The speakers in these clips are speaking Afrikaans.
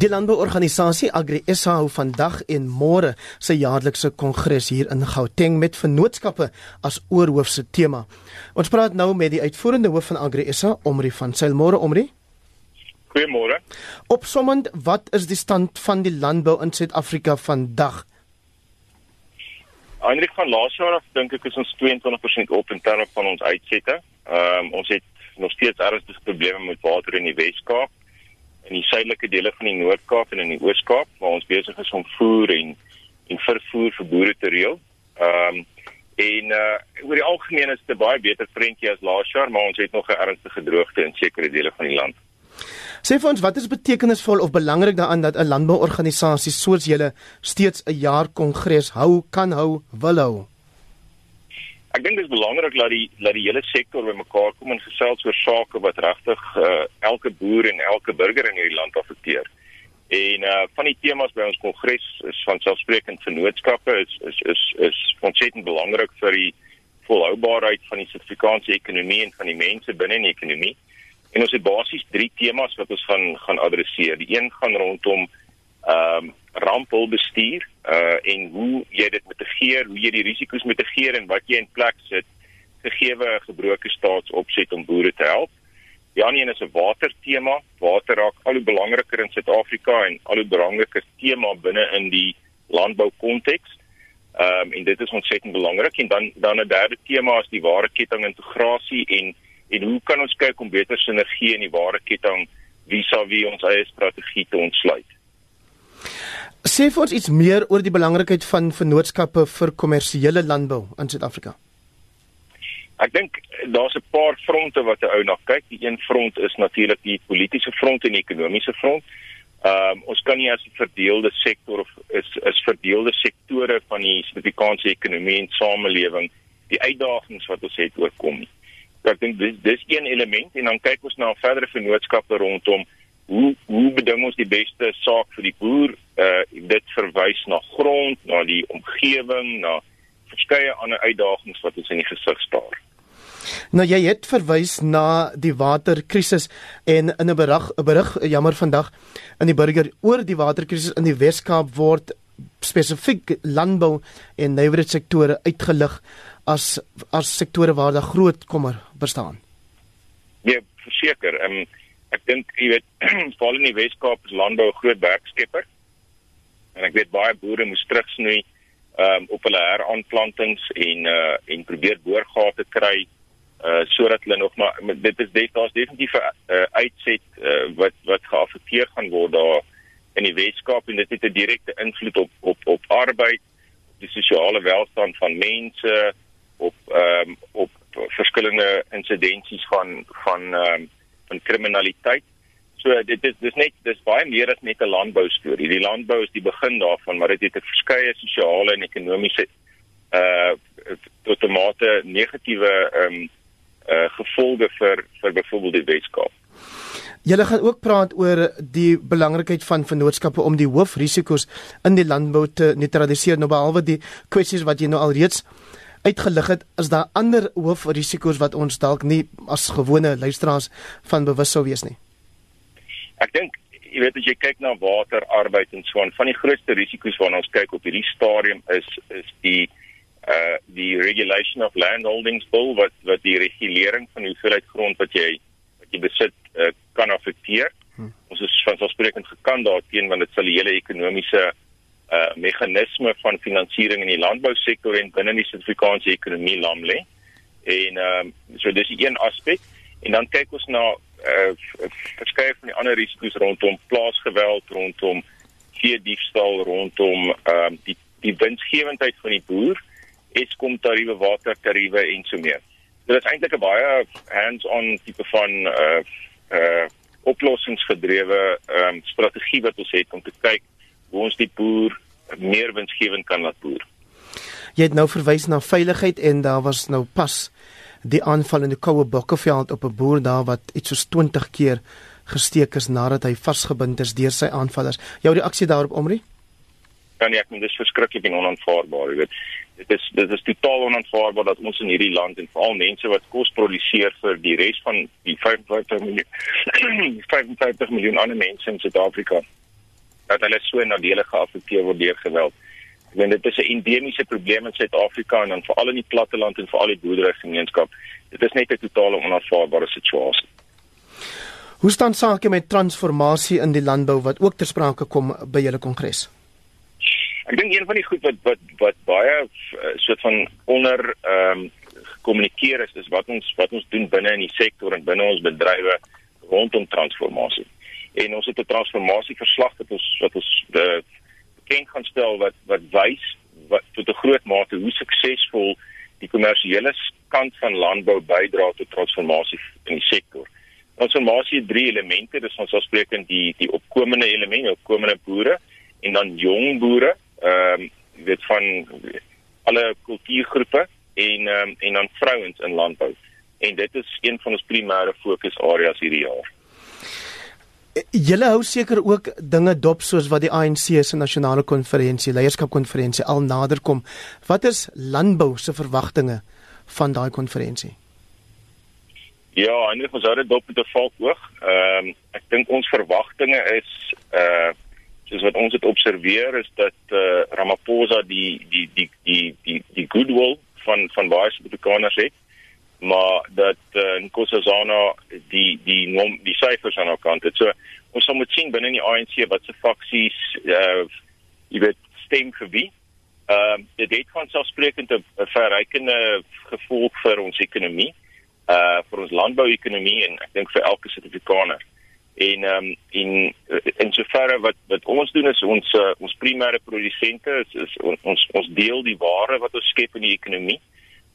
Die landbouorganisasie AgriSA hou vandag en môre sy jaarlikse kongres hier in Gauteng met vennootskappe as oorhoofse tema. Ons praat nou met die uitvoerende hoof van AgriSA, Omri van Zyl. Môre, Omri. Goeiemôre. Opsommend, wat is die stand van die landbou in Suid-Afrika vandag? Eindelijk van laas jaar af dink ek is ons 22% op in terme van ons uitsette. Ons het nog steeds ernstige probleme met water in die Wes-Kaap, in die suidelike dele van die Noord-Kaap en in die Oos-Kaap, waar ons besig is om voer en vervoer vir boere te reël. Oor die algemeen is dit 'n baie beter prentjie as laas jaar, maar ons het nog 'n ernstige droogte in sekere dele van die land. Sê vir ons, wat is betekenisvol of belangrik daaraan dat 'n landbouorganisasie soos julle steeds 'n jaar kongres hou, kan hou, wil hou? Ek dink dit is belangrik dat die hele sektor bymekaar kom en gesels oor sake wat regtig elke boer en elke burger in hierdie land affekteer. En van die temas by ons kongres is vanselfsprekend vennootskappe, is ontsettend belangrik vir die volhoubaarheid van die Suid-Afrikaanse ekonomie en van die mense binne in die ekonomie. En ons het basies 3 temas wat ons gaan adresseer. Die een gaan rondom rampbestuur en hoe jy dit mitigeer, hoe jy die risiko's mitigeer en wat jy in plek sit gegee 'n gebroke staatsopset om boere te help. Die ander een is 'n watertema. Water raak al hoe belangriker in Suid-Afrika en al hoe belangriker tema binne in die landboukonteks. En dit is ontsettend belangrik. En dan 'n derde tema is die waardekettingintegrasie en hoe kan ons kyk om beter sinergie in die waardeketting vis-à-vis ons eie strategie te ontsluit. Sê vir ons iets meer oor die belangrikheid van vennootskappe vir kommersiële landbou in Suid-Afrika. Ek dink daar's 'n paar fronte wat 'n ou na kyk. Die een front is natuurlik die politiese front en die ekonomiese front. Ons kan nie as 'n verdeelde sektor of is verdeelde sektore van die Suid-Afrikaanse ekonomie en samelewing die uitdagings wat ons het oorkom nie. Ek dink dis een element en dan kyk ons na verdere vennootskappe rondom hoe beding ons die beste saak vir die boer. Dit verwys na grond, na die omgewing, na verskeie ander uitdagings wat ons in die gesig staar. Nou jy het verwys na die waterkrisis en in 'n berig jammer vandag in die burger oor die waterkrisis in die Wes-Kaap word spesifiek landbou en nywerheidssektore uitgelig as sektore waar daar groot kommer bestaan. Ja, verseker. Ek dink jy weet veral in die Wes-Kaap is landbou 'n groot werkskepper. En ek weet baie boere moes terugsnoei op hulle heraanplantings en probeer boorgate kry sodat hulle nog maar daar's definitief 'n uitset wat geaffekteer gaan word daar in die Wes-Kaap en dit het 'n direkte invloed op arbeid, op die sosiale welstand van mense, op verskillende insidensies van kriminaliteit. So dis baie meer as net 'n landbou storie. Die landbou is die begin daarvan, maar dit het 'n verskeie sosiale en ekonomiese tot 'n mate negatiewe gevolge vir byvoorbeeld die Wes-Kaap. Julle gaan ook praat oor die belangrikheid van vennootskappe om die hoofrisiko's in die landbou te neutraliseer. Nou behalwe die kwessies wat jy nou al reeds uitgelig het, is daar ander hoofrisiko's wat ons dalk nie as gewone luisteraars van bewus sou wees nie. Ek dink, jy weet as jy kyk na water, arbeid en so aan, van die grootste risiko's waarna ons kyk op hierdie stadium is die Regulation of Landholdings Bill wat die regulering van die hoeveelheid grond wat jy besit kan affekteer. Ons is vanselfsprekend gekant daarteen want dit sal die hele ekonomiese meganisme van finansiering in die landbousektor en binne die Suid-Afrikaanse ekonomie lam lê. En so dis een aspek. En dan kyk ons na verskeie van die ander risiko's rondom plaasgeweld, rondom veediefstal, rondom die winsgewendheid van die boer, Eskom tariewe, watertariewe en so meer. So dit is eintlik 'n baie hands-on tipe van oplossingsgedrewe strategie wat ons het om te kyk hoe ons die boer meer winsgewend kan laat boer. Jy het nou verwys na veiligheid en daar was nou pas die aanval in die Koue Bokkeveld op 'n boer daar wat iets soos 20 keer gesteek is nadat hy vasgebind is deur sy aanvallers. Jou reaksie daarop, Omri? Ja nee, ek dink dis verskriklik en onaanvaarbaar, jy weet. Dit is totaal onaanvaarbaar dat ons in hierdie land en veral mense wat kos produseer vir die res van die 55 miljoen ander mense in Suid-Afrika dat hulle so nadelig geaffekteer word deur geweld. Ek meen dit is 'n endemiese probleem in Suid-Afrika en dan veral in die platteland en veral die boerderygemeenskap. Dit is net 'n totale onaanvaarbare situasie. Hoe staan sake met transformasie in die landbou wat ook ter sprake kom by julle kongres? Ek dink een van die goed wat baie soort van onder gekommunikeer is wat ons doen binne in die sektor en binne ons bedrywe rondom transformasie. En ons het 'n transformasieverslag wat ons bekend gaan stel wat wys tot 'n groot mate hoe suksesvol die kommersiële kant van landbou bydra tot transformasie in die sektor. Transformasie het 3 elemente, dis ons afspreekend die opkomende elemente, opkomende boere en dan jong boere, van alle kultuurgroepe en dan vrouens in landbou. En dit is een van ons primêre fokusareas hierdie jaar. Julle hou seker ook dinge dop soos wat die ANC se nasionale konferensie, leierskapkonferensie al nader kom. Wat is landbou se verwagtinge van daai konferensie? Ja, eintlik ons hou dit dop met 'n valkoog. Ek dink ons verwagtinge is soos wat ons dit observeer is dat Ramaphosa die goodwill van baie Suid-Afrikaners het, maar dat Nkosazana die syfers aan haar kant het. So ons sal moet sien binne in die ANC wat se faksies stem vir wie. Dit het vanselfsprekend 'n verrykende gevolg vir ons ekonomie, vir ons landbouekonomie en ek dink vir elke Suid-Afrikaner. En in soverre wat ons doen is ons primêre produsente is ons deel die ware wat ons skep in die ekonomie,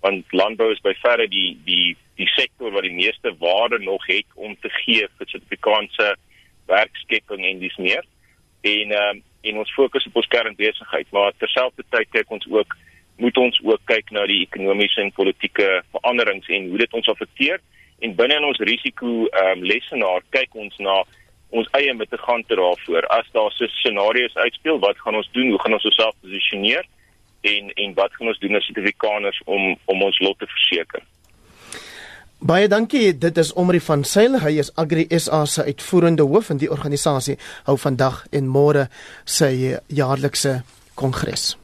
want landbou is by verre die sektor wat die meeste waarde nog het om te gee vir Suid-Afrikaanse werkskepping en dis meer. En ons fokus op ons kernbesigheid, maar terselfdertyd moet ons ook kyk na die ekonomiese en politieke veranderings en hoe dit ons affekteer. En binne in ons risiko lesenaar kyk ons na ons eie mitigante daarvoor. As daar so scenario's uitspeel, wat gaan ons doen? Hoe gaan ons osself posisioneer? En wat gaan ons doen as Suid-Afrikaners om ons lot te verseker? Baie dankie, dit is Omri van Sail, hy is Agri SA se uitvoerende hoof en die organisasie hou vandag en môre sy jaarlikse kongres.